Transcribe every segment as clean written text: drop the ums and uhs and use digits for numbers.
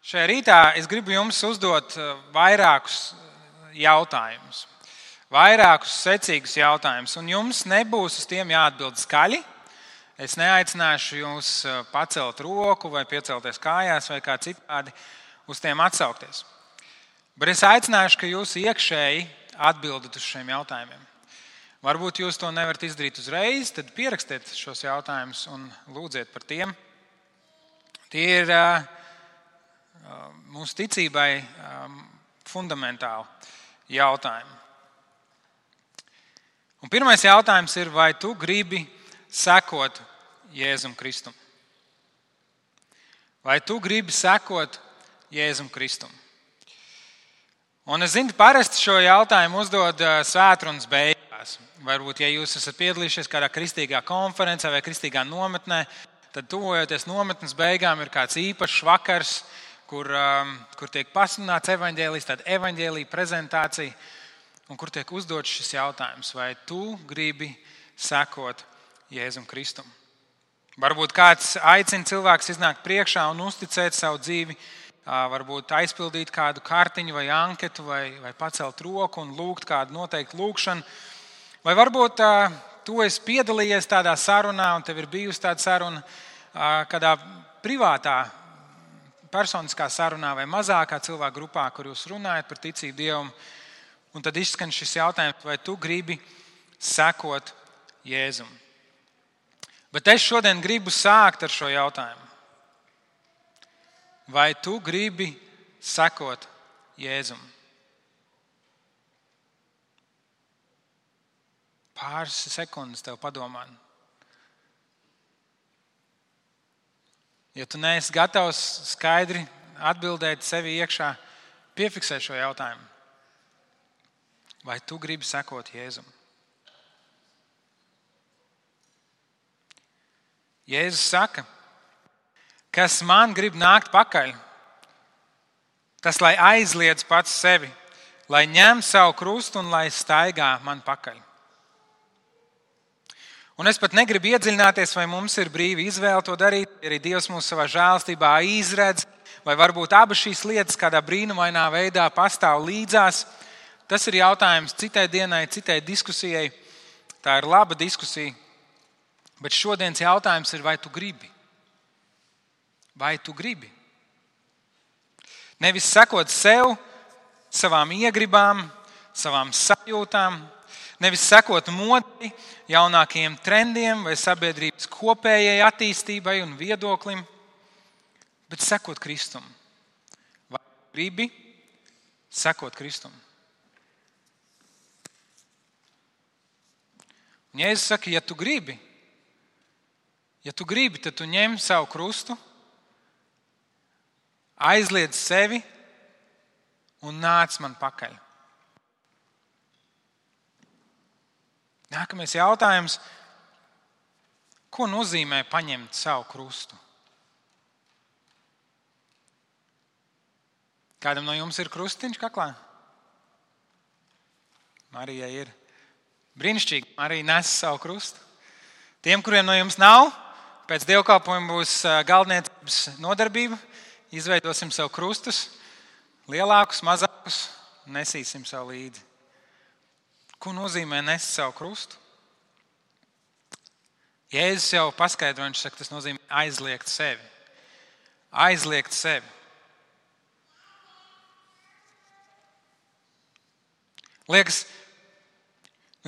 Šajā rītā es gribu jums uzdot vairākus jautājumus, vairākus secīgus jautājumus, un jums nebūs uz tiem jāatbild skaļi. Es neaicināšu jūs pacelt roku vai piecelties kājās vai kā citādi uz tiem atsaukties. Bet es aicināšu, ka jūs iekšēji atbildat uz šiem jautājumiem. Varbūt jūs to nevarat izdarīt uzreiz, tad pierakstiet šos jautājumus un lūdziet par tiem. Tie ir mūsu ticībai fundamentāli jautājumi. Un pirmais jautājums ir, vai tu gribi sekot Jēzum Kristum? Vai tu gribi sekot Jēzum Kristum? Un es zinu, parasti šo jautājumu uzdod svētrunas beigās. Varbūt, ja jūs esat piedalījušies kādā kristīgā konferencē vai kristīgā nometnē, tad tuvojoties nometnes beigām ir kāds īpašs vakars, kur tiek pasludināts evaņģēlijs, tāda evaņģēlija prezentācija, un kur tiek uzdots šis jautājums, vai tu gribi sekot Jēzum Kristum? Varbūt kāds aicina cilvēks iznākt priekšā un uzticēt savu dzīvi, varbūt aizpildīt kādu kartiņu vai anketu, vai pacelt roku un lūgt kādu noteiktu lūgšanu. Vai varbūt tu esi piedalījies tādā sarunā, un tev ir bijusi tāda saruna kādā privātā, personiskā sarunā vai mazākā cilvēku grupā, kur jūs runājat par ticību Dievam, un tad izskan šis jautājums, vai tu gribi sekot Jēzum. Bet es šodien gribu sākt ar šo jautājumu. Vai tu gribi sekot Jēzum? Pāris sekundes tev padomāt. Ja tu neesi gatavs skaidri atbildēt sevi iekšā, piefiksē šo jautājumu. Vai tu gribi sekot Jēzum? Jēzus saka, kas man grib nākt pakaļ, tas lai aizliedz pats sevi, lai ņem savu krustu un lai staigā man pakaļ. Un es pat negribu iedziļināties, vai mums ir brīva izvēle to darīt, arī Dievs mūs savā žēlstībā izredz, vai varbūt abas šīs lietas kādā brīnumainā veidā pastāv līdzās. Tas ir jautājums citai dienai, citai diskusijai. Tā ir laba diskusija. Bet šodienas jautājums ir, vai tu gribi? Vai tu gribi? Nevis sekot sev, savām iegribām, savām sajūtām, nevis sekot modei, jaunākajiem trendiem vai sabiedrības kopējai attīstībai un viedoklim, bet sekot Kristum. Vai tu gribi sekot Kristum? Un Jēzus saka, ja tu gribi, tad tu ņem savu krustu, aizliedz sevi un nāc man pakaļ. Nākamais jautājums, ko nozīmē paņemt savu krustu? Kādam no jums ir krustiņš kaklā? Marijai ir. Brīnišķīgi, Marija nes savu krustu. Tiem, kuriem no jums nav, pēc dievkalpojuma būs galdniecības nodarbība. Izveidosim sev krustus, lielākus, mazākus, nesīsim sev līdzi. Ko nozīmē nest savu krustu? Jēzus jau paskaidro, viņš saka, tas nozīmē aizliegt sevi. Aizliegt sevi. Liekas,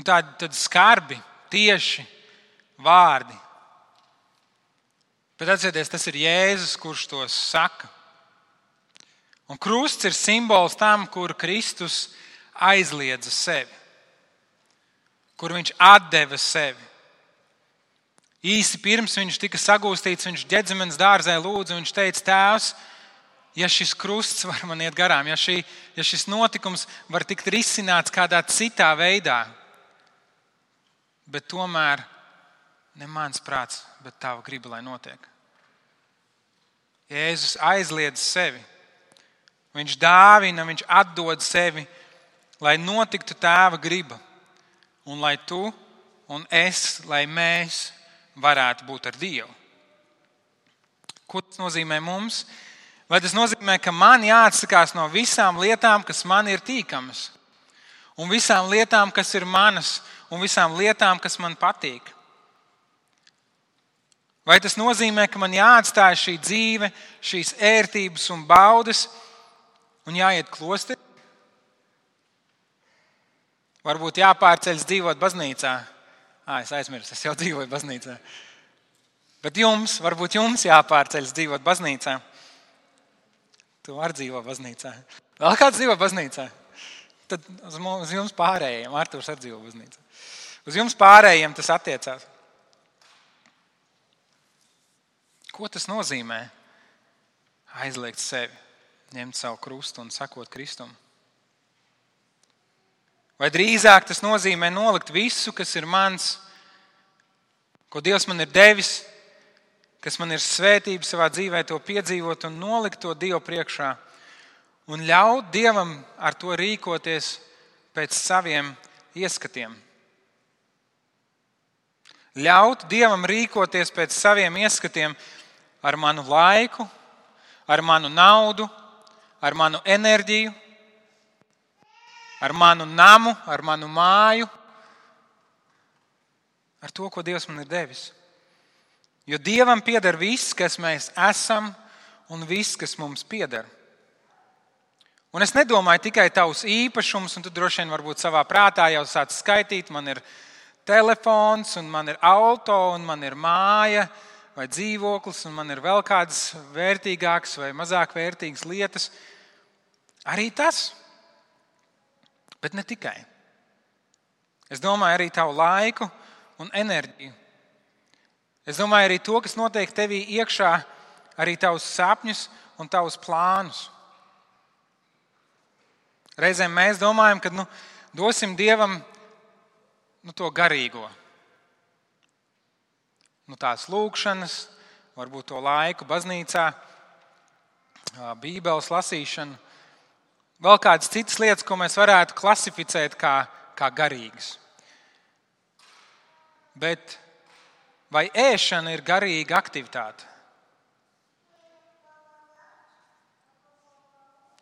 tādi skarbi, tieši vārdi. Bet atcerieties, tas ir Jēzus, kurš tos saka. Un krusts ir simbols tam, kur Kristus aizliedza sevi. Kur viņš atdeva sevi. Īsi pirms viņš tika sagūstīts, viņš Ģedzemenes dārzē lūdza, un viņš teica, Tēvs, ja šis krusts var man iet garām, ja šis notikums var tikt risināts kādā citā veidā, bet tomēr ne mans prāts, bet tava griba, lai notiek. Jēzus aizliedz sevi. Viņš dāvina, viņš atdod sevi, lai notiktu tēva griba. Un lai tu un es, lai mēs varētu būt ar Dievu. Ko tas nozīmē mums? Vai tas nozīmē, ka man jāatsakās no visām lietām, kas man ir tīkamas, un visām lietām, kas ir manas, un visām lietām, kas man patīk? Vai tas nozīmē, ka man jāatstāj šī dzīve, šīs ērtības un baudas, un jāiet klosterī? Varbūt jāpārceļas dzīvot baznīcā. Es aizmirsu, es jau dzīvoju baznīcā. Bet varbūt jums jāpārceļas dzīvot baznīcā. Tu vari dzīvot baznīcā. Vēl kāds dzīvo baznīcā? Tad uz jums pārējiem, Artūrs arī dzīvo baznīcā. Uz jums pārējiem tas attiecās. Ko tas nozīmē? Aizliegt sevi, ņemt savu krustu un sekot Kristum. Vai drīzāk tas nozīmē nolikt visu, kas ir mans, ko Dievs man ir devis, kas man ir svētība savā dzīvē, to piedzīvot un nolikt to Dievu priekšā un ļaut Dievam ar to rīkoties pēc saviem ieskatiem. Ļaut Dievam rīkoties pēc saviem ieskatiem ar manu laiku, ar manu naudu, ar manu enerģiju, ar manu namu, ar manu māju, ar to, ko Dievs man ir devis. Jo Dievam pieder viss, kas mēs esam, un viss, kas mums pieder. Un es nedomāju tikai tavus īpašumus, un tu droši vien varbūt savā prātā jau sāc skaitīt, man ir telefons, un man ir auto, un man ir māja, vai dzīvoklis, un man ir vēl kādas vērtīgākas vai mazāk vērtīgas lietas. Arī tas. Bet ne tikai. Es domāju arī tavu laiku un enerģiju. Es domāju arī to, kas notiek tevī iekšā, arī tavus sapņus un tavus plānus. Reizēm mēs domājam, ka dosim Dievam to garīgo. Tās lūkšanas, varbūt to laiku baznīcā, Bībeles lasīšanu, vēl kādas citas lietas, ko mēs varētu klasificēt kā garīgas. Bet vai ēšana ir garīga aktivitāte?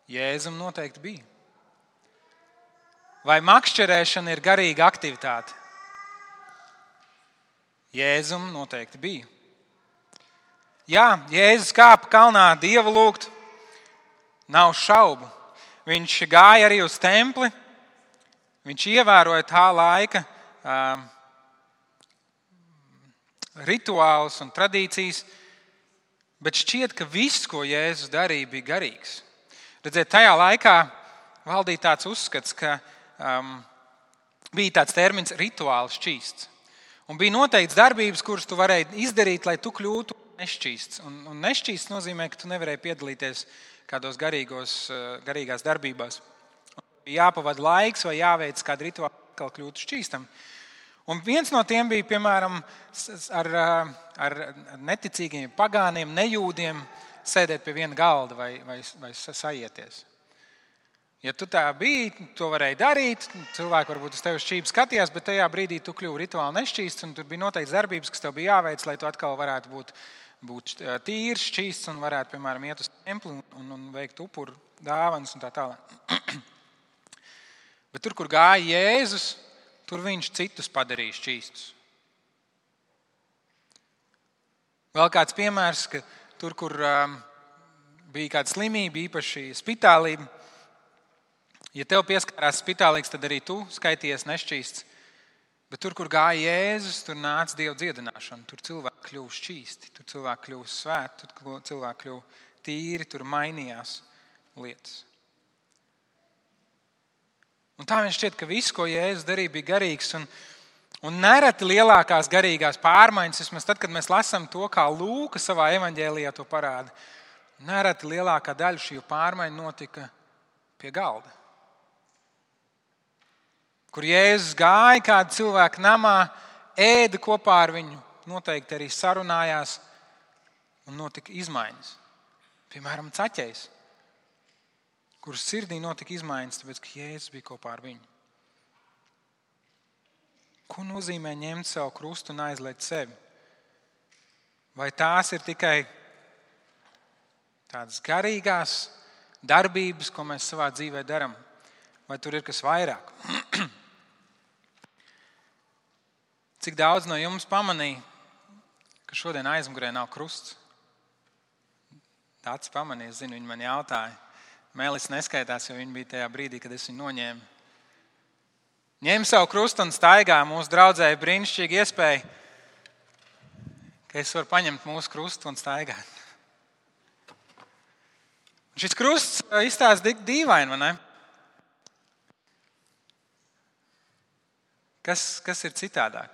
Jēzum noteikti bija. Vai makšķerēšana ir garīga aktivitāte? Jēzum noteikti bija. Jā, Jēzus kāpa kalnā Dievu lūgt, nav šaubu. Viņš gāja arī uz templi, viņš ievēroja tā laika rituālus un tradīcijas, bet šķiet, ka viss, ko Jēzus darīja, bija garīgs. Redziet, tajā laikā valdīja tāds uzskats, ka bija tāds termins rituāli šķīsts. Un bija noteikts darbības, kuras tu varēji izdarīt, lai tu kļūtu nešķīsts. Un nešķīsts nozīmē, ka tu nevarēji piedalīties kādos garīgās darbībās. Bija jāpavada laiks vai jāveic kādu rituālu, kā kļūtu šķīstam. Un viens no tiem bija, piemēram, ar neticīgiem pagāniem, nejūdiem sēdēt pie viena galda vai sajieties. Ja tu tā biji, to varēja darīt, cilvēki varbūt uz tevi šķīvi skatījās, bet tajā brīdī tu kļuvi rituāli nešķīsts, un tur bija noteikts darbības, kas tev bija jāveic, lai tu atkal varētu būt tīrs, šķīsts un varētu, piemēram, iet uz templi un veikt upuru dāvanas un tā tālāk. Bet tur, kur gāja Jēzus, tur viņš citus padarīja šķīstus. Vēl kāds piemērs, ka tur, kur bija kāda slimība, īpaši spitālība, ja tev pieskārās spitālīgs, tad arī tu skaities nešķīsts. Bet tur, kur gāja Jēzus, tur nāca Dieva dziedināšana. Tur cilvēki kļuva šķīsti, tur cilvēki kļuva svēti, tur cilvēki kļuva tīri, tur mainījās lietas. Un tā viņš šķiet, ka viss, ko Jēzus darīja, bija garīgs. Un nereti lielākās garīgās pārmaiņas, vismaz tad, kad mēs lasām to, kā Lūka savā evaņģēlijā to parāda, nereti lielākā daļa šī pārmaiņa notika pie galda. Kur Jēzus gāja kādu cilvēku namā, ēda kopā ar viņu, noteikti arī sarunājās un notika izmaiņas. Piemēram, Caķejs, kuras sirdī notika izmaiņas, tāpēc, ka Jēzus bija kopā ar viņu. Ko nozīmē ņemt savu krustu un aizliegt sevi? Vai tās ir tikai kādas garīgās darbības, ko mēs savā dzīvē darām, vai tur ir kas vairāk? Cik daudz no jums pamanīja, ka šodien aizmugurē nav krusts? Tāds pamanīja, es zinu, viņi man jautāja. Mēlis neskaitās, jo viņi bija tajā brīdī, kad es viņu noņēmu. Ņem savu krustu un staigā. Mūsu draudzēji brīnišķīgi iespēja, ka es varu paņemt mūsu krustu un staigāt. Šis krusts izstāsta tik dīvaini, vai ne? Kas ir citādāk?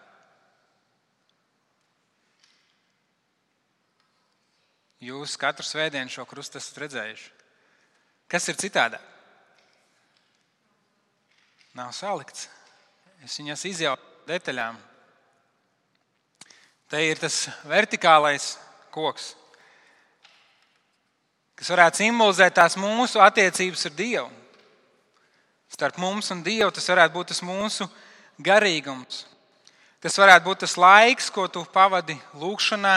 Jūs katru svētdienu šo krustu esat redzējuši. Kas ir citādāk? Nav salikts. Es viņas izjaucu detaļām. Te ir tas vertikālais koks, kas varētu simbolizēt tās mūsu attiecības ar Dievu. Starp mums un Dievu tas varētu būt tas mūsu garīgums. Tas varētu būt tas laiks, ko tu pavadi lūgšanā,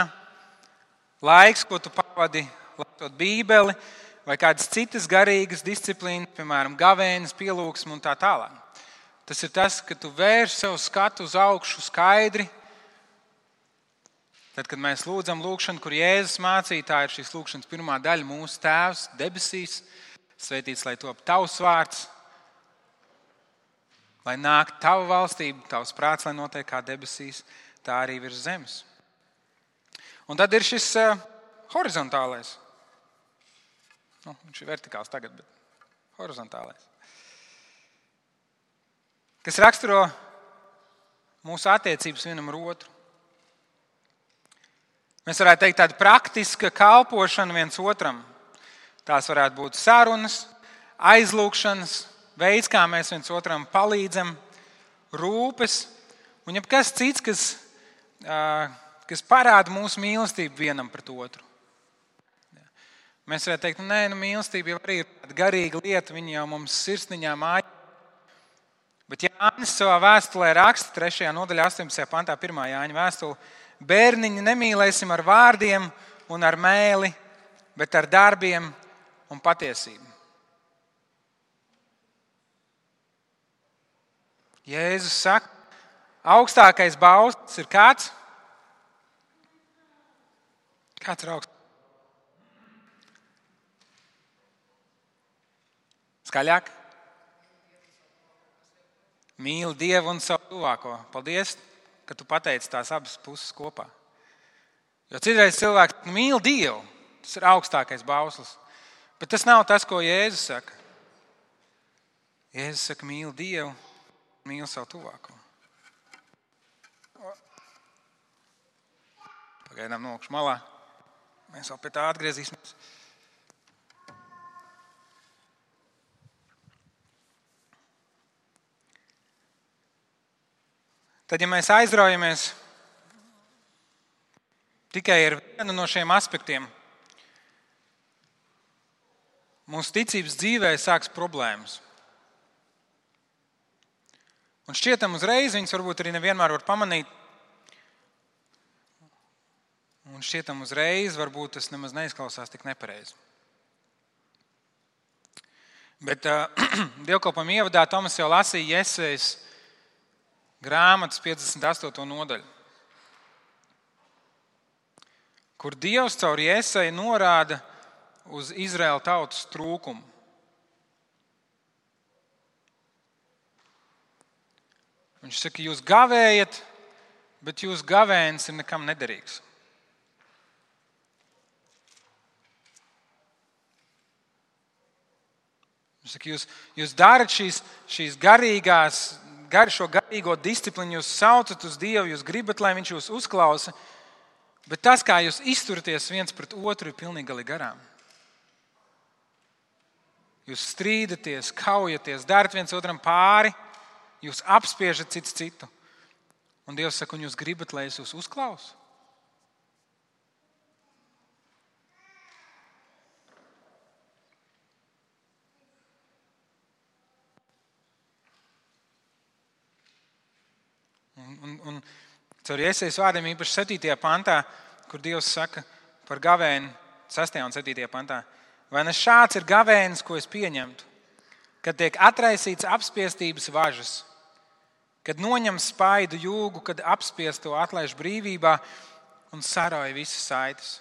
laiks, ko tu pavadi lasot Bībeli, vai kādas citas garīgas disciplīnas, piemēram, gavēnis, pielūgsme un tā tālāk. Tas ir tas, ka tu vērš savu skatu uz augšu skaidri. Tad, kad mēs lūdzam lūgšanu, kur Jēzus mācīja, tā ir šīs lūgšanas pirmā daļa, mūsu Tēvs debesīs, svētīts, lai top tavs vārds, lai nāk tava valstība, tavs prāts, lai notiek kā debesīs, tā arī virs zemes. Un tad ir šis horizontālais. Viņš ir vertikāls tagad, bet horizontālais. Kas raksturo mūsu attiecības vienam ar otru. Mēs varētu teikt tāda praktiska kalpošana viens otram. Tās varētu būt sarunas, aizlūgšanas, veids, kā mēs viens otram palīdzam, rūpes un jebkas cits, kas parāda mūsu mīlestību vienam pret otru. Mēs varētu teikt, mīlestība jau arī ir tāda garīga lieta, viņa jau mums sirsniņā māja. Bet Jānis savā vēstulē raksta 3. nodaļā 18. pantā 1. Jāņa vēstule: bērniņi, nemīlēsim ar vārdiem un ar mēli, bet ar darbiem un patiesību. Jēzus saka, augstākais bauslis ir kāds? Kāds ir augstākais? Skaļāk? Mīli Dievu un savu tuvāko. Paldies, ka tu pateici tās abas puses kopā. Jo citreiz cilvēks mīl Dievu, tas ir augstākais bauslis. Bet tas nav tas, ko Jēzus saka. Jēzus saka, mīli Dievu, mīli savu tuvāko. Pagaidām nokšu malā. Mēs vēl pie tā atgriezīsimies. Tad, ja mēs aizraujamies tikai ar vienu no šiem aspektiem, mūsu ticības dzīvē sāks problēmas. Un šķietam uzreiz, viņas varbūt arī nevienmēr var pamanīt, un šķietam uzreiz varbūt tas nemaz neizklausās tik nepareizi. Bet dievkalpojuma ievadā Tomas jau lasīja Jesajas grāmatas 58. nodaļu, kur Dievs caur Jesaju norāda uz Izraēla tautas trūkumu. Viņš saka, jūs gavējat, bet jūsu gavēnis ir nekam nederīgs. Viņš saka, jūs darat šīs garīgās, šo garīgo disciplīnu, jūs saucat uz Dievu, jūs gribat, lai viņš jūs uzklausa, bet tas, kā jūs izturaties viens pret otru, ir pilnīgi gali garām. Jūs strīdaties, kaujaties, darat viens otram pāri, jūs apspiežat cits citu. Un Dievs saka, un jūs gribat, lai es jūs uzklausu? Un caur Iesaijas vārdiem īpaši 7. pantā, kur Dievs saka par gavēni, 6. un 7. pantā. Vai ne šāds ir gavēnis, ko es pieņemtu, kad tiek atraisīts apspiestības važas, kad noņem spaidu jūgu, kad apspiesto atlaiž brīvībā un sarauj visas saites.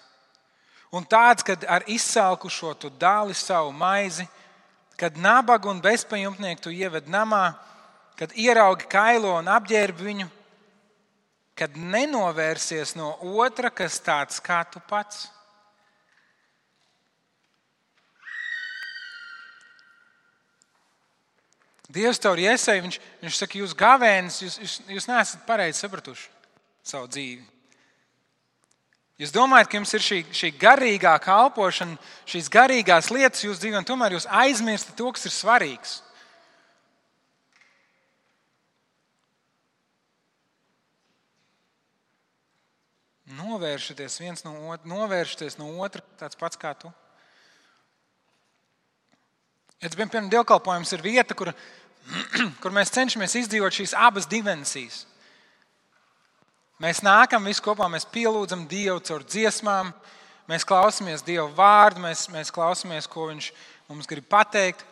Un tāds, kad ar izsalkušo tu dāli savu maizi, kad nabagu un bezpajumtnieku tu ieved namā, kad ieraugi kailo un apģērbi viņu, kad nenovērsies no otra, kas tāds kā tu pats. Dievs tev ir iesēja, viņš saka, jūs gavēnis, jūs neesat pareizi sapratuši savu dzīvi. Jūs domājat, ka jums ir šī garīgā kalpošana, šīs garīgās lietas jūsu dzīvē, un tomēr jūs aizmirstat to, kas ir svarīgs. Novēršaties viens no otra, novēršaties no otra, tāds pats kā tu. Ja tas, piemēram, dievkalpojums ir vieta, kur mēs cenšamies izdzīvot šīs abas dimensijas. Mēs nākam visi kopā, mēs pielūdzam Dievu caur dziesmām, mēs klausāmies Dieva vārdu, mēs klausāmies, ko Viņš mums grib pateikt.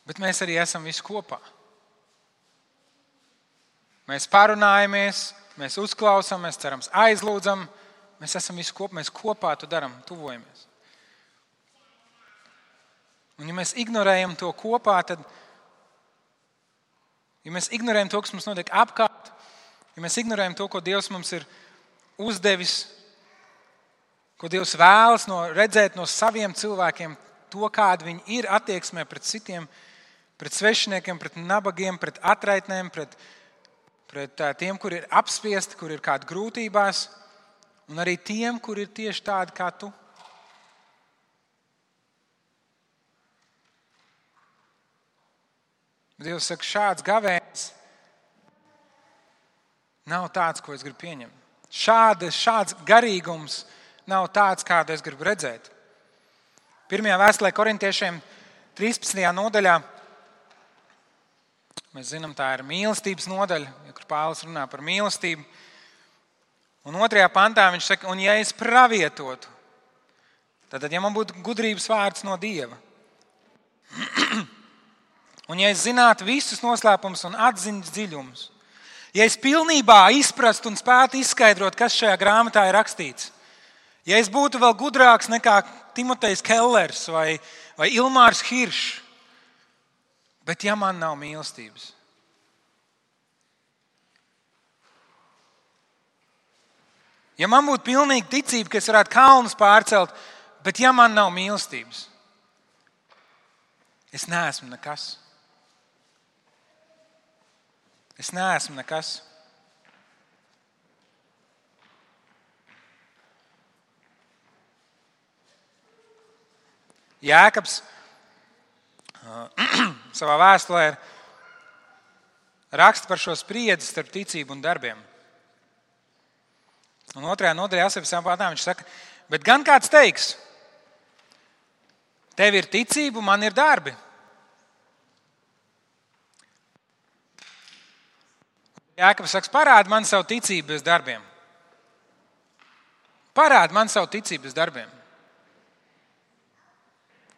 Bet mēs arī esam visi kopā. Mēs parunājamies, mēs uzklausām, mēs cerams aizlūdzam, mēs esam visi kopā, mēs kopā to darām, tuvojamies. Un ja mēs ignorējam to kopā, tad, ja mēs ignorējam to, kas mums notiek apkārt, ja mēs ignorējam to, ko Dievs mums ir uzdevis, ko Dievs vēlas redzēt no saviem cilvēkiem, to, kāda viņi ir attieksmē pret citiem, pret svešiniekiem, pret nabagiem, pret atraitnēm, pret tiem, kur ir apspiesti, kur ir kādi grūtībās, un arī tiem, kur ir tieši tādi kā tu. Dievs saka, šāds gavēnis nav tāds, ko es gribu pieņemt. Šāds garīgums nav tāds, kādu es gribu redzēt. Pirmajā vēstulē Korintiešiem 13. nodaļā, mēs zinām, tā ir mīlestības nodaļa, kur Pāvils runā par mīlestību. Un 2. pantā viņš saka, un ja es pravietotu, tad ja man būtu gudrības vārds no Dieva, un ja es zinātu visus noslēpumus un atziņas dziļumus, ja es pilnībā izprastu un spētu izskaidrot, kas šajā grāmatā ir rakstīts, ja es būtu vēl gudrāks nekā Timotejs Kellers vai Ilmārs Hiršs, bet ja man nav mīlestības, ja man būtu pilnīga ticība, ka es varētu kalnus pārcelt, bet ja man nav mīlestības, es neesmu nekas. Es neesmu nekas. Jēkabs savā vēstulē raksta par šo spriedzi starp ticību un darbiem. Un 2. nodaļā 8. pantā viņš saka, bet gan kāds teiks, tev ir ticība, man ir darbi. Jēkabs saka, parādi man savu ticību bez darbiem. Parādi man savu ticību bez darbiem.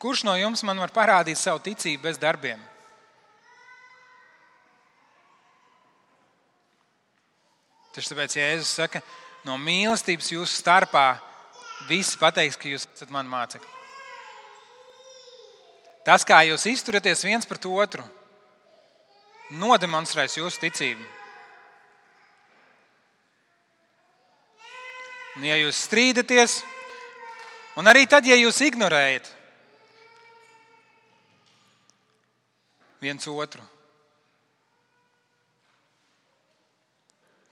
Kurš no jums man var parādīt savu ticību bez darbiem? Tieši tāpēc Jēzus saka, no mīlestības jūsu starpā visi pateiks, ka jūs esat mani mācekļi. Tas, kā jūs izturaties viens pret otru, nodemonstrēs jūsu ticību. Un ja jūs strīdaties, un arī tad, ja jūs ignorējat viens otru,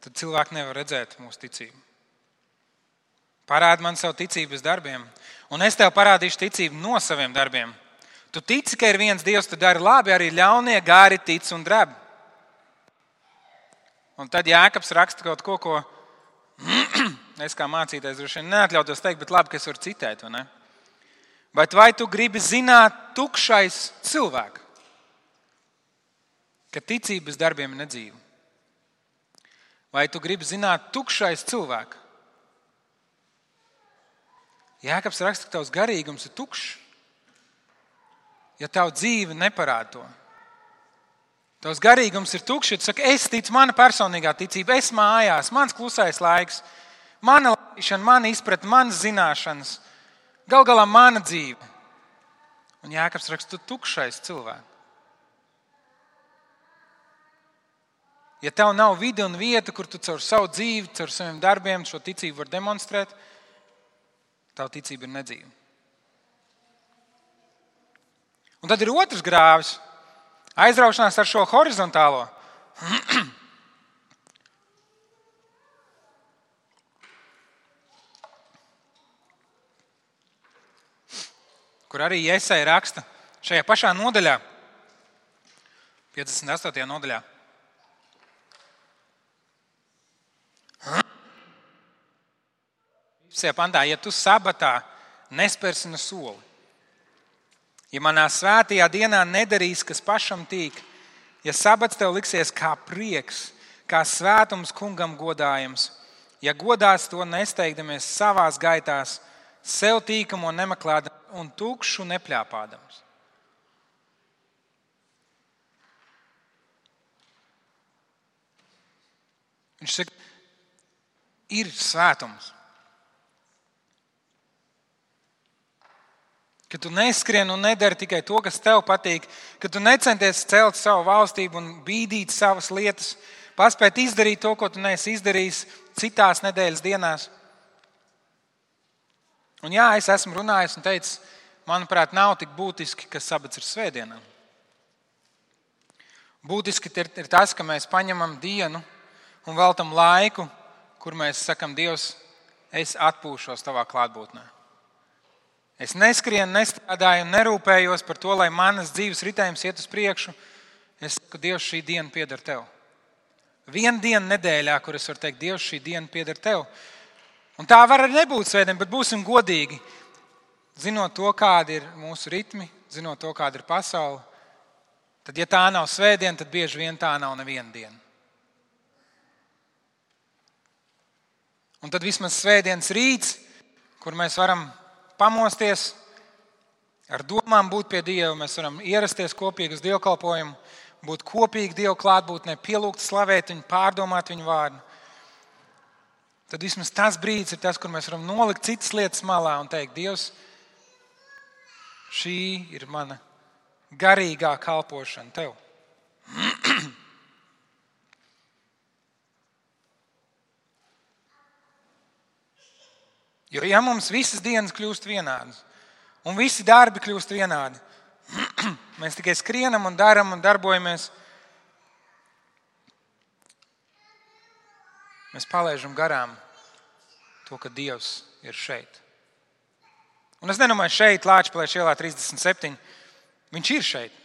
tad cilvēki nevar redzēt mūsu ticību. Parādi man savu ticību bez darbiem, un es tev parādīšu ticību no saviem darbiem. Tu tici, ka ir viens Dievs, tu dari labi, arī ļaunie gāri tic un dreb. Un tad Jēkabs raksta kaut ko es kā mācītājs droši vien neatļautos teikt, bet labi, ka es varu citēt, vai ne? Bet vai tu gribi zināt, tukšais cilvēks, ka ticība bez darbiem ir nedzīva? Vai tu gribi zināt tukšais cilvēku? Jēkabs raksta, ka tavs garīgums ir tukšs, ja tavu dzīve neparāda to. Tavs garīgums ir tukšs, ja tu saki, es ticu, mana personīgā ticība, es mājās, mans klusais laiks, mana laišana, mana izpratne, manas zināšanas, gal galā mana dzīve. Un Jēkabs raksta, tu tukšais cilvēks. Ja tev nav vide un vieta, kur tu caur savu dzīvi, caur saviem darbiem šo ticību var demonstrēt, tava ticība ir nedzīva. Un tad ir otrs grāvis. Aizraušanās ar šo horizontālo. Kur arī Jesaja raksta šajā pašā nodaļā, 58. nodaļā. Pantā, ja tu sabatā nespērsi ne soli, ja manā svētajā dienā nedarīs, kas pašam tīk, ja sabats tev liksies kā prieks, kā svētums kungam godājams, ja godās to nesteigdamies savās gaitās, sev tīkamo nemeklēdams un tukšu nepļāpādams. Viņš saka, ir svētums. Ka tu neskrien un nedari tikai to, kas tev patīk, ka tu necenties celt savu valstību un bīdīt savas lietas, paspēt izdarīt to, ko tu neesi izdarījis citās nedēļas dienās. Un jā, es esmu runājis un teicis, manuprāt, nav tik būtiski, ka sabats ir svētdienā. Būtiski ir tas, ka mēs paņemam dienu un veltam laiku, kur mēs sakam, Dievs, es atpūšos tavā klātbūtnē. Es neskrienu, nestrādāju un nerūpējos par to, lai manas dzīves ritējums iet uz priekšu. Es saku, Dievs, šī diena pieder tev. Viena diena nedēļā, kur es varu teikt, Dievs, šī diena pieder tev. Un tā var arī nebūt svētdiena, bet būsim godīgi. Zinot to, kādi ir mūsu ritmi, zinot to, kāda ir pasaule, tad, ja tā nav svētdiena, tad bieži vien tā nav neviena diena. Un tad vismaz svētdienas rīts, kur mēs varam pamosties, ar domām būt pie Dieva, mēs varam ierasties kopīgi uz dievkalpojumu, būt kopīgi Dievu klātbūtnē, pielūgt, slavēt viņu, pārdomāt viņu vārdu. Tad vismaz tas brīdis ir tas, kur mēs varam nolikt citas lietas malā un teikt, Dievs, šī ir mana garīgā kalpošana tev. Jo ja mums visas dienas kļūst vienādas un visi darbi kļūst vienādi, mēs tikai skrienam un daram un darbojamies, mēs palaižam garām to, ka Dievs ir šeit. Un es nedomāju šeit, Lāčplēša ielā 37, viņš ir šeit,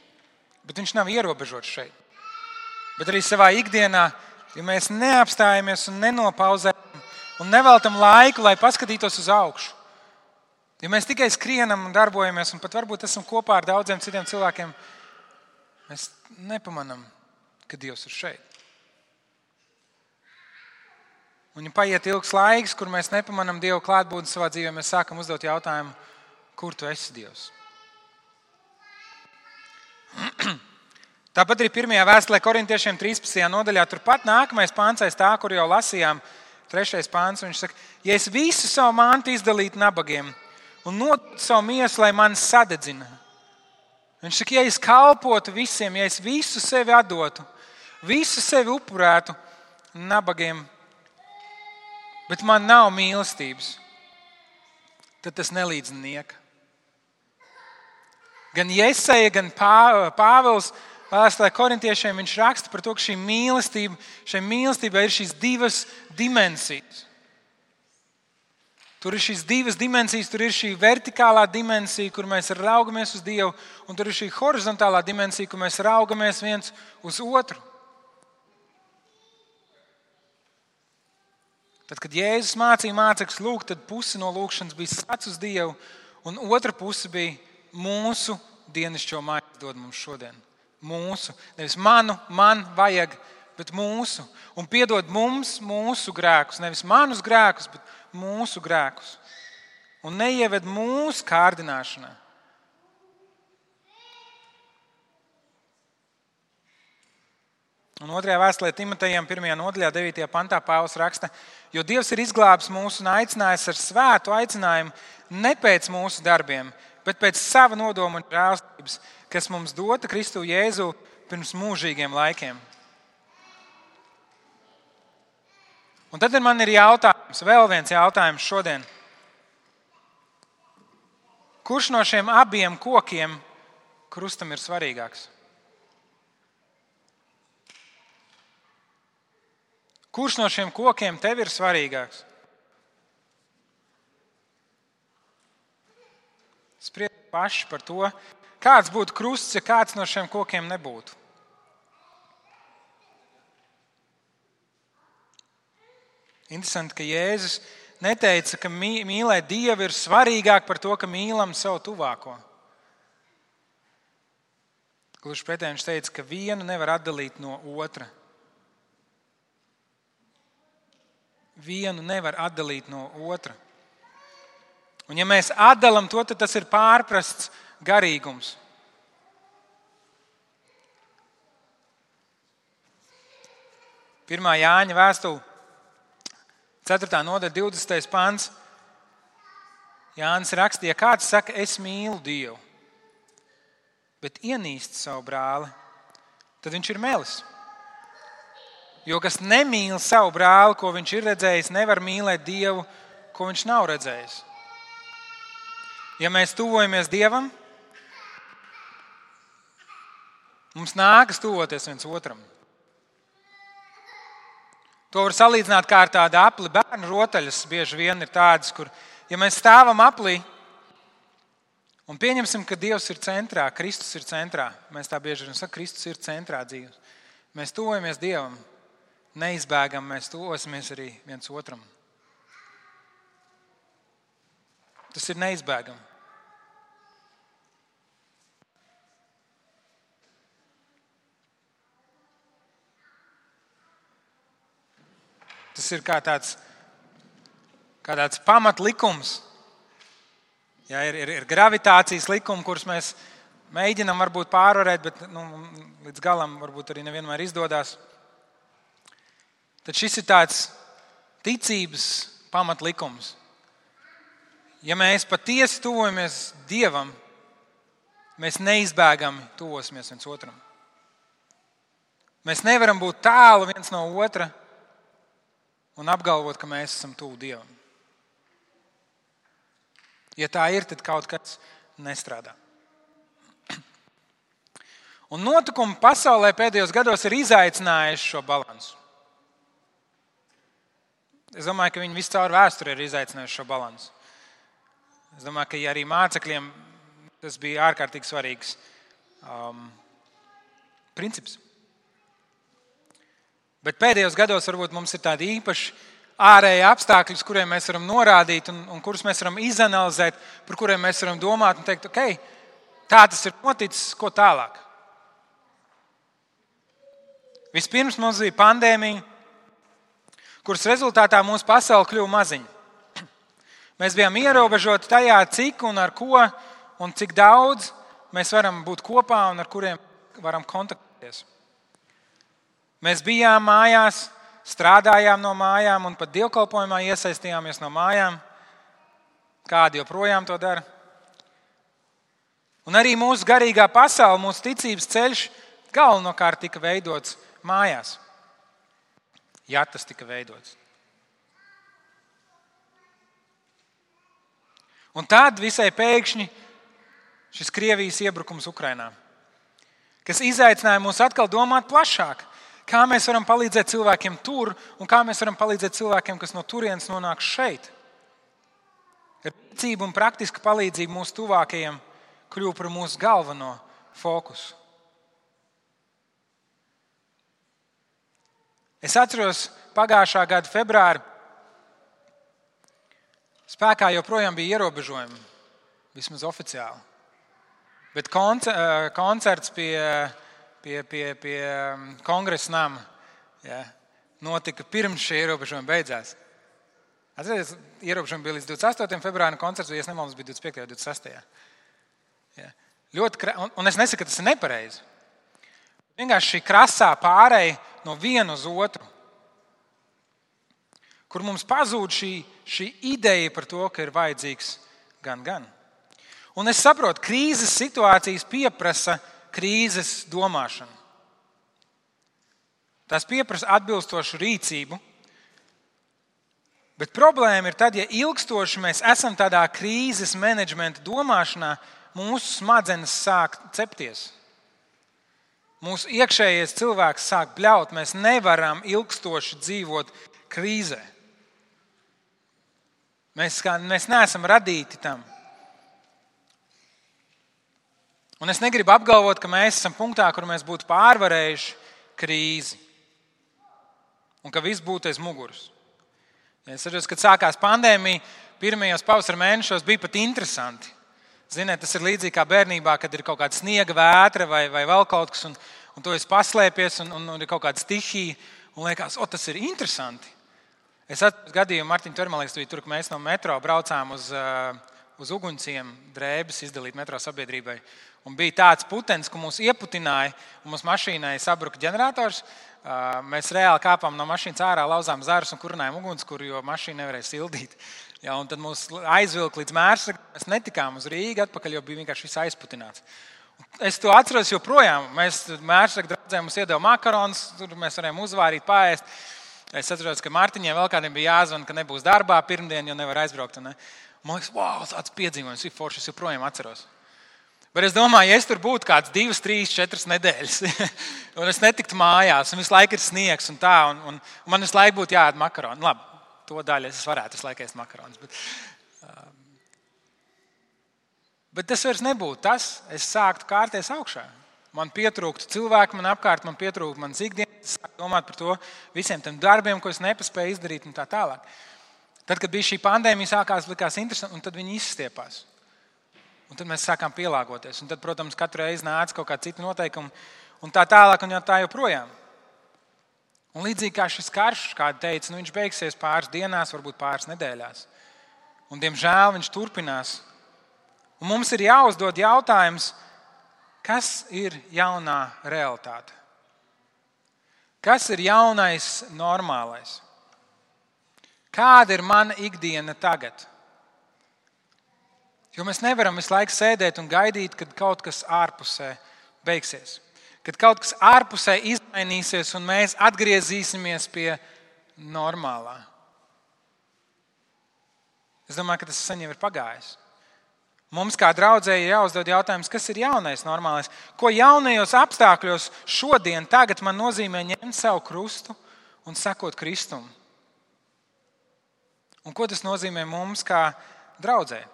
bet viņš nav ierobežots šeit. Bet arī savā ikdienā, ja mēs neapstājamies un nenopauzējam, un neveltam laiku, lai paskatītos uz augšu. Ja mēs tikai skrienam un darbojamies, un pat varbūt esam kopā ar daudziem citiem cilvēkiem, mēs nepamanām, ka Dievs ir šeit. Un ja paiet ilgs laiks, kur mēs nepamanām Dievu klātbūtni savā dzīvē, mēs sākam uzdot jautājumu, kur tu esi, Dievs? Tāpat arī 1. vēstulē Korintiešiem 13. nodaļā, turpat nākamais pāns aiz tā, kur jau lasījām, 3. pāns, viņš saka, ja es visu savu mantu izdalītu nabagiem un nodotu savu miesu, lai mani sadedzina. Viņš saka, ja es kalpotu visiem, ja es visu sevi atdotu, visu sevi upurētu nabagiem, bet man nav mīlestības, tad tas nelīdz nieka. Gan Jesaja, gan Pāvils Vēstulē Korintiešiem viņš raksta par to, ka šai mīlestībai ir šīs divas dimensijas. Tur ir šīs divas dimensijas, tur ir šī vertikālā dimensija, kur mēs raugamies uz Dievu, un tur ir šī horizontālā dimensija, kur mēs raugamies viens uz otru. Tad, kad Jēzus mācīja mācekļus lūgt, tad pusi no lūgšanas bija skats uz Dievu, un otra puse bija mūsu dienascho maizi dod mums šodien. Mūsu, nevis man vajag, bet mūsu. Un piedod mums mūsu grēkus, nevis manus grēkus, bet mūsu grēkus. Un neieved mūsu kārdināšanā. Un 2. vēstulē Timotejam 1. nodaļā 9. pantā Pāvils raksta, jo Dievs ir izglābis mūs un aicinājis ar svētu aicinājumu ne pēc mūsu darbiem, bet pēc sava nodoma un žēlstības, kas mums dota Kristu Jēzu pirms mūžīgiem laikiem. Un tad man ir jautājums, vēl viens jautājums šodien. Kurš no šiem abiem kokiem krustam ir svarīgāks? Kurš no šiem kokiem tev ir svarīgāks? Spriediet paši par to, kāds būtu krusts, ja kāds no šiem kokiem nebūtu. Interesanti, ka Jēzus neteica, ka mīlēt Dievu ir svarīgāk par to, ka mīlam savu tuvāko. Gluži pretēji viņš teica, ka vienu nevar atdalīt no otra. Vienu nevar atdalīt no otra. Un ja mēs atdalam to, tad tas ir pārprasts garīgums. Pirmā Jāņa vēstule, 4. nodaļa, 20. pants. Jānis rakstīja, ja kāds saka, es mīlu Dievu, bet ienīst savu brāli, tad viņš ir melis. Jo kas nemīl savu brāli, ko viņš ir redzējis, nevar mīlēt Dievu, ko viņš nav redzējis. Ja mēs tuvojamies Dievam, mums nākas tuvoties viens otram. To var salīdzināt kā ar tādu apli. Bērnu rotaļas bieži vien ir tādas, kur, ja mēs stāvam aplī un pieņemsim, ka Dievs ir centrā, Kristus ir centrā, mēs tā bieži vien sakam, Kristus ir centrā dzīves. Mēs tuvojamies Dievam, neizbēgam, mēs tuvosimies arī viens otram. Tas ir neizbēgami. Tas ir kā tāds pamatlikums. Ja, ir gravitācijas likumi, kurus mēs mēģinām varbūt pārvarēt, bet līdz galam varbūt arī nevienmēr izdodas. Tad šis ir tāds ticības pamatlikums. Ja mēs patiesi tuvojamies Dievam, mēs neizbēgami tuvosimies viens otram. Mēs nevaram būt tālu viens no otra un apgalvot, ka mēs esam tuvu Dievam. Ja tā ir, tad kaut kas nestrādā. Un notikumi pasaulē pēdējos gados ir izaicinājuši šo balansu. Es domāju, ka viņi visu caur vēsturi ir izaicinājuši šo balansu. Es domāju, ka arī mācekļiem tas bija ārkārtīgi svarīgs princips. Bet pēdējos gados varbūt mums ir tādi īpaši ārēji apstākļi, uz kuriem mēs varam norādīt un kurus mēs varam izanalizēt, par kuriem mēs varam domāt un teikt, ok, tā tas ir noticis, ko tālāk. Vispirms mums bija pandēmija, kuras rezultātā mūsu pasaule kļuva maziņa. Mēs bijām ierobežoti tajā, cik un ar ko un cik daudz mēs varam būt kopā un ar kuriem varam kontaktēties. Mēs bijām mājās, strādājām no mājām un pat dievkalpojumā iesaistījāmies no mājām. Kādi joprojām to dara. Un arī mūsu garīgā pasaule, mūsu ticības ceļš galvenokārt tika veidots mājās. Ja tas tika veidots. Un tad visai pēkšņi šis Krievijas iebrukums Ukrainā, kas izaicināja mūs atkal domāt plašāk. Kā mēs varam palīdzēt cilvēkiem tur un kā mēs varam palīdzēt cilvēkiem, kas no turienes nonāk šeit. Rīcība un praktiska palīdzība mūsu tuvākajiem kļuva par mūsu galveno fokusu. Es atceros pagājušā gada februāri. Spēkā joprojām bija ierobežojumi, vismaz oficiāli. Bet koncerts pie Kongresa nama Ja, notika pirms šie ierobežojumi beidzās. Atcerieties, ierobežojumi bija līdz 28. februārim, koncerts, ja nemaldos, bija 25. un 26. Ja. Un es nesaku, ka tas ir nepareizi. Vienkārši šī krasā pārēja no viena uz otru, kur mums pazūd šī ideja par to, ka ir vajadzīgs gan. Un es saprotu, krīzes situācijas pieprasa krīzes domāšanu. Tās pieprasa atbilstošu rīcību, bet problēma ir tad, ja ilgstoši mēs esam tādā krīzes menedžmenta domāšanā, mūsu smadzenes sāk cepties. Mūsu iekšējais cilvēks sāk bļaut, mēs nevaram ilgstoši dzīvot krīzē. Mēs neesam radīti tam. Un es negribu apgalvot, ka mēs esam punktā, kur mēs būtu pārvarējuši krīzi un ka viss būtu aiz muguras. Ja es saprotu, kad sākās pandēmija, pirmajos pavasara mēnešos bija pat interesanti. Ziniet, tas ir līdzīgi kā bērnībā, kad ir kaut kāda sniega vētra vai vēl kaut kas, un tu esi paslēpies, un ir kaut kāda stihija, un liekas, tas ir interesanti. Es atceros gadījumu, Martiņa Termalīks bija tur, ka mēs no metro braucām uz ugunsiem drēbes izdalīt metro sabiedrībai. Un bija tāds putenis, ka mūs ieputināja, un mūsu mašīnai sabruka ģenerators. Mēs reāli kāpām no mašīnas ārā, lauzām zarus un kurinājām ugunskura, jo mašīna nevarēja sildīt. Ja, un tad mūs aizvilka līdz Mērsragam. Mēs netikām uz Rīgu atpakaļ, jo bija vienkārši viss aizputināts. Es to atceros joprojām. Mēs Mērsraga draudzēm mums iedeva makaronus, tur mēs varējām uzvārīt, paēst. Es atceros, ka Mārtiņiem vēl kādiem bija jāzvan, ka nebūs darbā pirmdien, jo nevar aizbraukt. Man liekas, wow, tāds piedzīvojums ir foršs, es joprojām atceros. Bet es domāju, ja es tur būtu kāds 2, 3, 4 nedēļas, un es netiktu mājās, un visu laiku ir sniegs un tā, un man visu laiku būtu jāēd makaroni. Labi, to daļu es varētu visu laiku ēst makaronus. Bet tas vairs nebūtu tas, es sāktu kārties augšā. Man pietrūktu cilvēku, man apkārt, man pietrūktu manas ikdienas, es sāku domāt par to visiem tiem darbiem, ko es nepaspēju izdarīt un tā tālāk. Tad, kad bija šī pandēmija, sākās likās interesanti, un tad viņi izstiepās. Un tad mēs sākām pielāgoties. Un tad, protams, katru reizi nāca kaut kāda cita noteikuma un tā tālāk un tā joprojām. Un līdzīgi kā šis karš, kāda teica, viņš beigsies pāris dienās, varbūt pāris nedēļās. Un, diemžēl, viņš turpinās. Un mums ir jāuzdod jautājums, kas ir jaunā realitāte? Kas ir jaunais normālais? Kāda ir mana ikdiena tagad? Jo mēs nevaram visu laiku sēdēt un gaidīt, kad kaut kas ārpusē beigsies. Kad kaut kas ārpusē izmainīsies un mēs atgriezīsimies pie normālā. Es domāju, ka tas sen jau ir pagājis. Mums kā draudzēji jāuzdod jautājums, kas ir jaunais normālais? Ko jaunajos apstākļos šodien, tagad man nozīmē ņemt savu krustu un sekot Kristum? Un ko tas nozīmē mums kā draudzēji?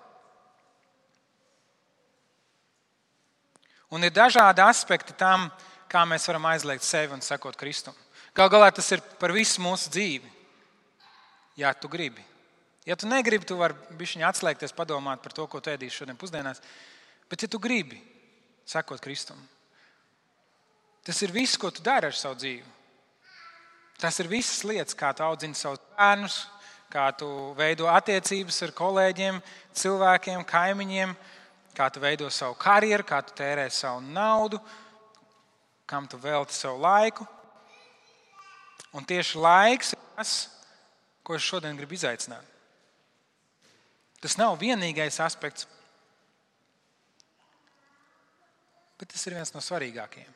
Un ir dažādi aspekti tam, kā mēs varam aizliegt sevi un sekot Kristum. Galu galā tas ir par visu mūsu dzīvi. Ja tu gribi. Ja tu negribi, tu vari bišķiņ atslēgties, padomāt par to, ko tu ēdīsi šodien pusdienās. Bet ja tu gribi sekot Kristum, tas ir viss, ko tu dari ar savu dzīvi. Tas ir visas lietas, kā tu audzini savus bērnus, kā tu veido attiecības ar kolēģiem, cilvēkiem, kaimiņiem, kā tu veido savu karjeru, kā tu tērē savu naudu, kam tu velti savu laiku. Un tieši laiks ir tas, ko es šodien gribu izaicināt. Tas nav vienīgais aspekts, bet tas ir viens no svarīgākajiem.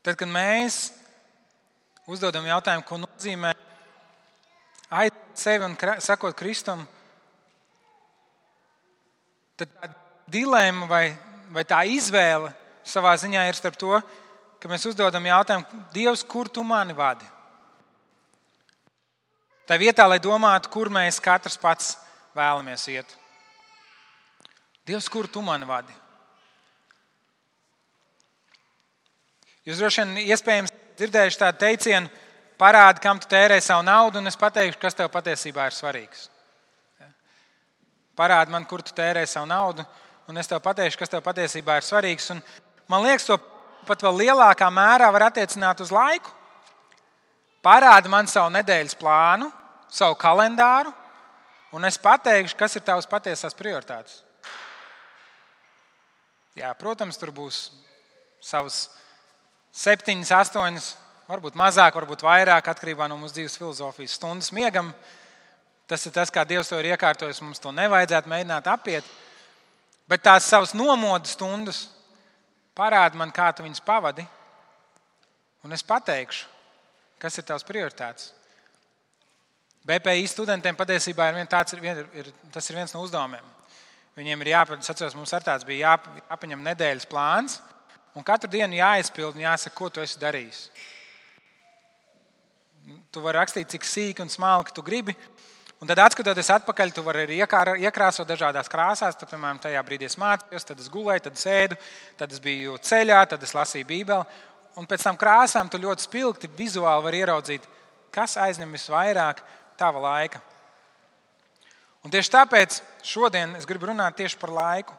Tad, kad mēs uzdodam jautājumu, ko nozīmē aiziet sevi un sekot Kristum, tad tā dilēma vai tā izvēle savā ziņā ir starp to, ka mēs uzdodam jautājumu, Dievs, kur tu mani vadi? Tā vietā, lai domātu, kur mēs katrs pats vēlamies iet. Dievs, kur tu mani vadi? Jūs droši vien iespējams dzirdējuši tādu teicienu, parādi, kam tu tērē savu naudu, un es pateikšu, kas tev patiesībā ir svarīgs. parādi man, kur tu tērē savu naudu, un es tev pateikšu, kas tev patiesībā ir svarīgs. Un man liekas, to pat vēl lielākā mērā var attiecināt uz laiku. Parādi man savu nedēļas plānu, savu kalendāru, un es pateikšu, kas ir tavas patiesās prioritātes. Jā, protams, tur būs savas 7, 8, varbūt mazāk, varbūt vairāk, atkarībā no mūsu dzīves filozofijas stundas miegam. Tas ir tas, kā Dievs to ir iekārtojis. Mums to nevajadzētu mēģināt apiet. Bet tās savas nomodu stundas parāda man, kā tu viņas pavadi. Un es pateikšu, kas ir tavs prioritātes. BPI studentiem patiesībā tas ir viens no uzdevumiem. Viņiem ir jāpēc, mums ar tāds bija jāpaņem nedēļas plāns, un katru dienu jāizpild un jāsaka, ko tu esi darījis. Tu vari rakstīt, cik sīki un smalki tu gribi, un tad atskatoties atpakaļ, tu vari arī iekrāsot dažādās krāsās. Tad, piemēram, tajā brīdī es mācījos, tad es gulēju, tad es ēdu, tad es biju ceļā, tad es lasīju Bībeli. Un pēc tam krāsām tu ļoti spilgti vizuāli vari ieraudzīt, kas aizņem visvairāk tava laika. Un tieši tāpēc šodien es gribu runāt tieši par laiku.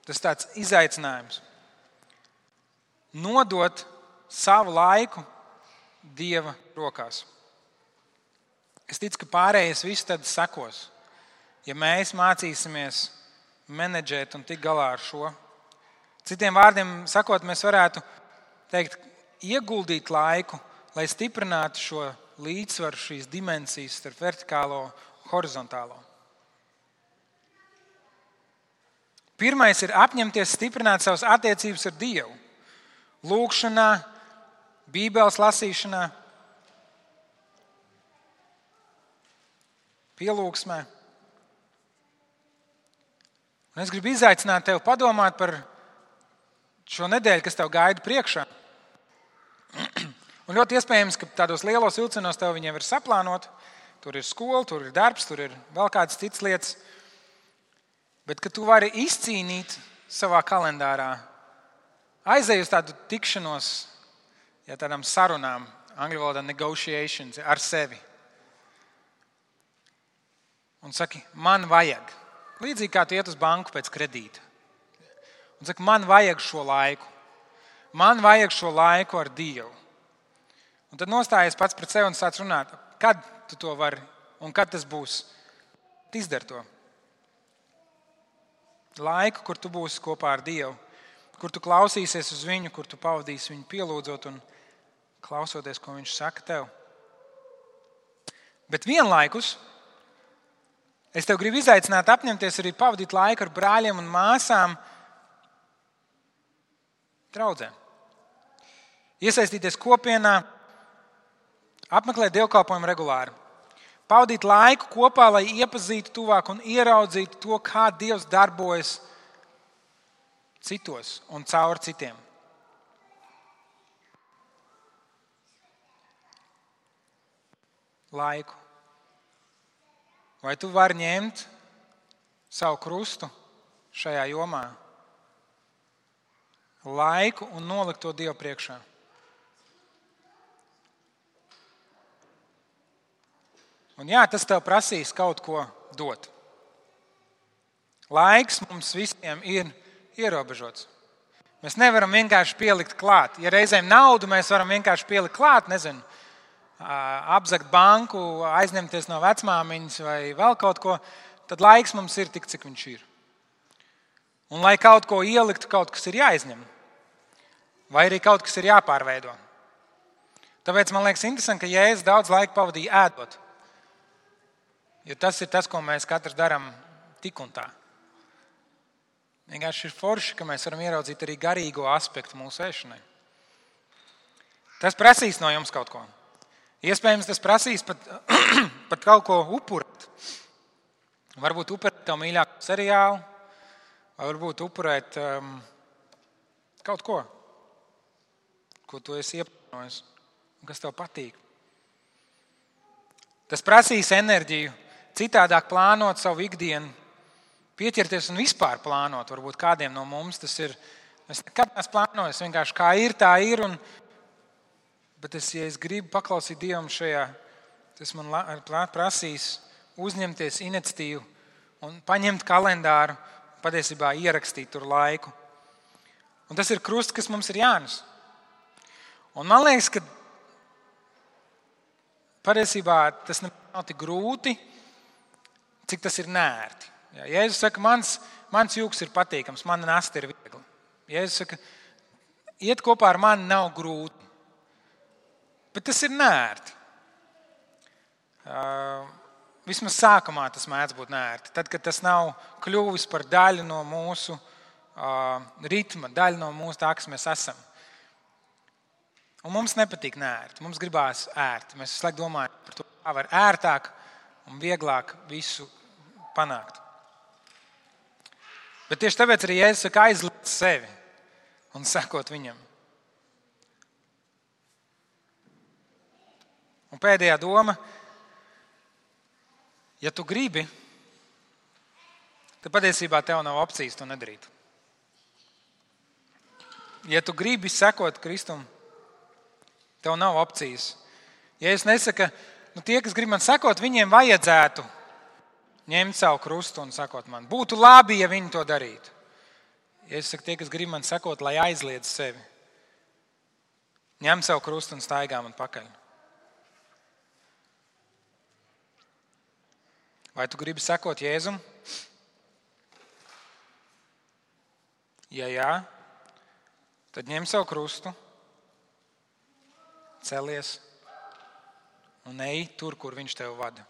Tas ir tāds izaicinājums. Nodot savu laiku Dieva rokās. Es ticu, ka pārējais viss tad sekos. Ja mēs mācīsimies menedžēt un tikt galā ar šo. Citiem vārdiem sakot, mēs varētu teikt, ieguldīt laiku, lai stiprinātu šo līdzsvaru, šīs dimensijas starp vertikālo un horizontālo. Pirmais ir apņemties stiprināt savas attiecības ar Dievu. Lūgšanā, Bībeles lasīšanā, pielūgsmē. Un es gribu izaicināt tevi padomāt par šo nedēļu, kas tev gaida priekšā. Un ļoti iespējams, ka tādos lielos vilcienos tev viņiem ir saplānot. Tur ir skola, tur ir darbs, tur ir vēl kādas citas lietas. Bet ka tu vari izcīnīt savā kalendārā, aizej uz tādu tikšanos, tādām sarunām, angļu valodā negotiations, ar sevi. Un saki, man vajag. Līdzīgi kā tu iet uz banku pēc kredīta. Un saki, man vajag šo laiku. Man vajag šo laiku ar Dievu. Un tad nostājies pats pret sevi un sāc runāt, kad tu to vari un kad tas būs. Izdari to. Laiku, kur tu būsi kopā ar Dievu, kur tu klausīsies uz viņu, kur tu pavadīsi viņu pielūdzot un klausoties, ko viņš saka tev. Bet vienlaikus es tev gribu izaicināt apņemties arī pavadīt laiku ar brāļiem un māsām draudzē. Iesaistīties kopienā, apmeklēt dievkalpojumu regulāri. Pavadīt laiku kopā, lai iepazītu tuvāk un ieraudzītu to, kā Dievs darbojas citos un caur citiem. Laiku. Vai tu vari ņemt savu krustu šajā jomā? Laiku un nolikt to Dievu priekšā. Un jā, tas tev prasīs kaut ko dot. Laiks mums visiem ir ierobežots. Mēs nevaram vienkārši pielikt klāt. Ja reizēm naudu mēs varam vienkārši pielikt klāt, nezinu, apzagt banku, aizņemties no vecmāmiņas vai vēl kaut ko, tad laiks mums ir tik, cik viņš ir. Un lai kaut ko ieliktu, kaut kas ir jāizņem. Vai arī kaut kas ir jāpārveido. Tāpēc man liekas interesanti, ka Jēzus daudz laika pavadīja ēdot. Jo tas ir tas, ko mēs katrs darām tik un tā. Vienkārši ir forši, ka mēs varam ieraudzīt arī garīgo aspektu mūsu ēšanai. Tas prasīs no jums kaut ko. Iespējams, tas prasīs pat kaut ko upurēt. Varbūt upurēt tev mīļāko seriālu, vai varbūt upurēt kaut ko tu esi ieplānojis un kas tev patīk. Tas prasīs enerģiju, citādāk plānot savu ikdienu, pieķerties un vispār plānot. Varbūt kādiem no mums tas ir. Es nekad neesmu plānojis, vienkārši kā ir, tā ir. Bet ja es gribu paklausīt Dievam šajā, tas man prasīs uzņemties iniciatīvu un paņemt kalendāru, patiesībā ierakstīt tur laiku. Un tas ir krusts, kas mums ir jānes. Un man liekas, ka patiesībā tas nav tik grūti, cik tas ir nērti. Ja, Jēzus saka, mans jūks ir patīkams, mana nasta ir viegla. Jēzus saka, iet kopā ar mani nav grūti, bet tas ir nērti. Vismaz sākumā tas mēdz būt nērti. Tad, kad tas nav kļuvis par daļu no mūsu ritma, daļu no mūsu tā, kas mēs esam. Un mums nepatīk nērti, mums gribās ērti. Mēs visu laiku domājam par to, kā var ērtāk un vieglāk visu panākt. Bet tieši tāpēc arī Jēzus saka, aizliec sevi un sekot viņam. Un pēdējā doma, ja tu gribi, tad patiesībā tev nav opcijas to nedarīt. Ja tu gribi sekot Kristum, tev nav opcijas. Jēzus nesaka, tie, kas grib man sekot, viņiem vajadzētu ņemt savu krustu un sekot man. Būtu labi, ja viņi to darītu. Jēzus saka, tie, kas grib man sekot, lai aizliedz sevi. Ņem savu krustu un staigā man pakaļ. Vai tu gribi sekot Jēzum? Ja jā, tad ņem savu krustu, celies un ej tur, kur viņš tev vada.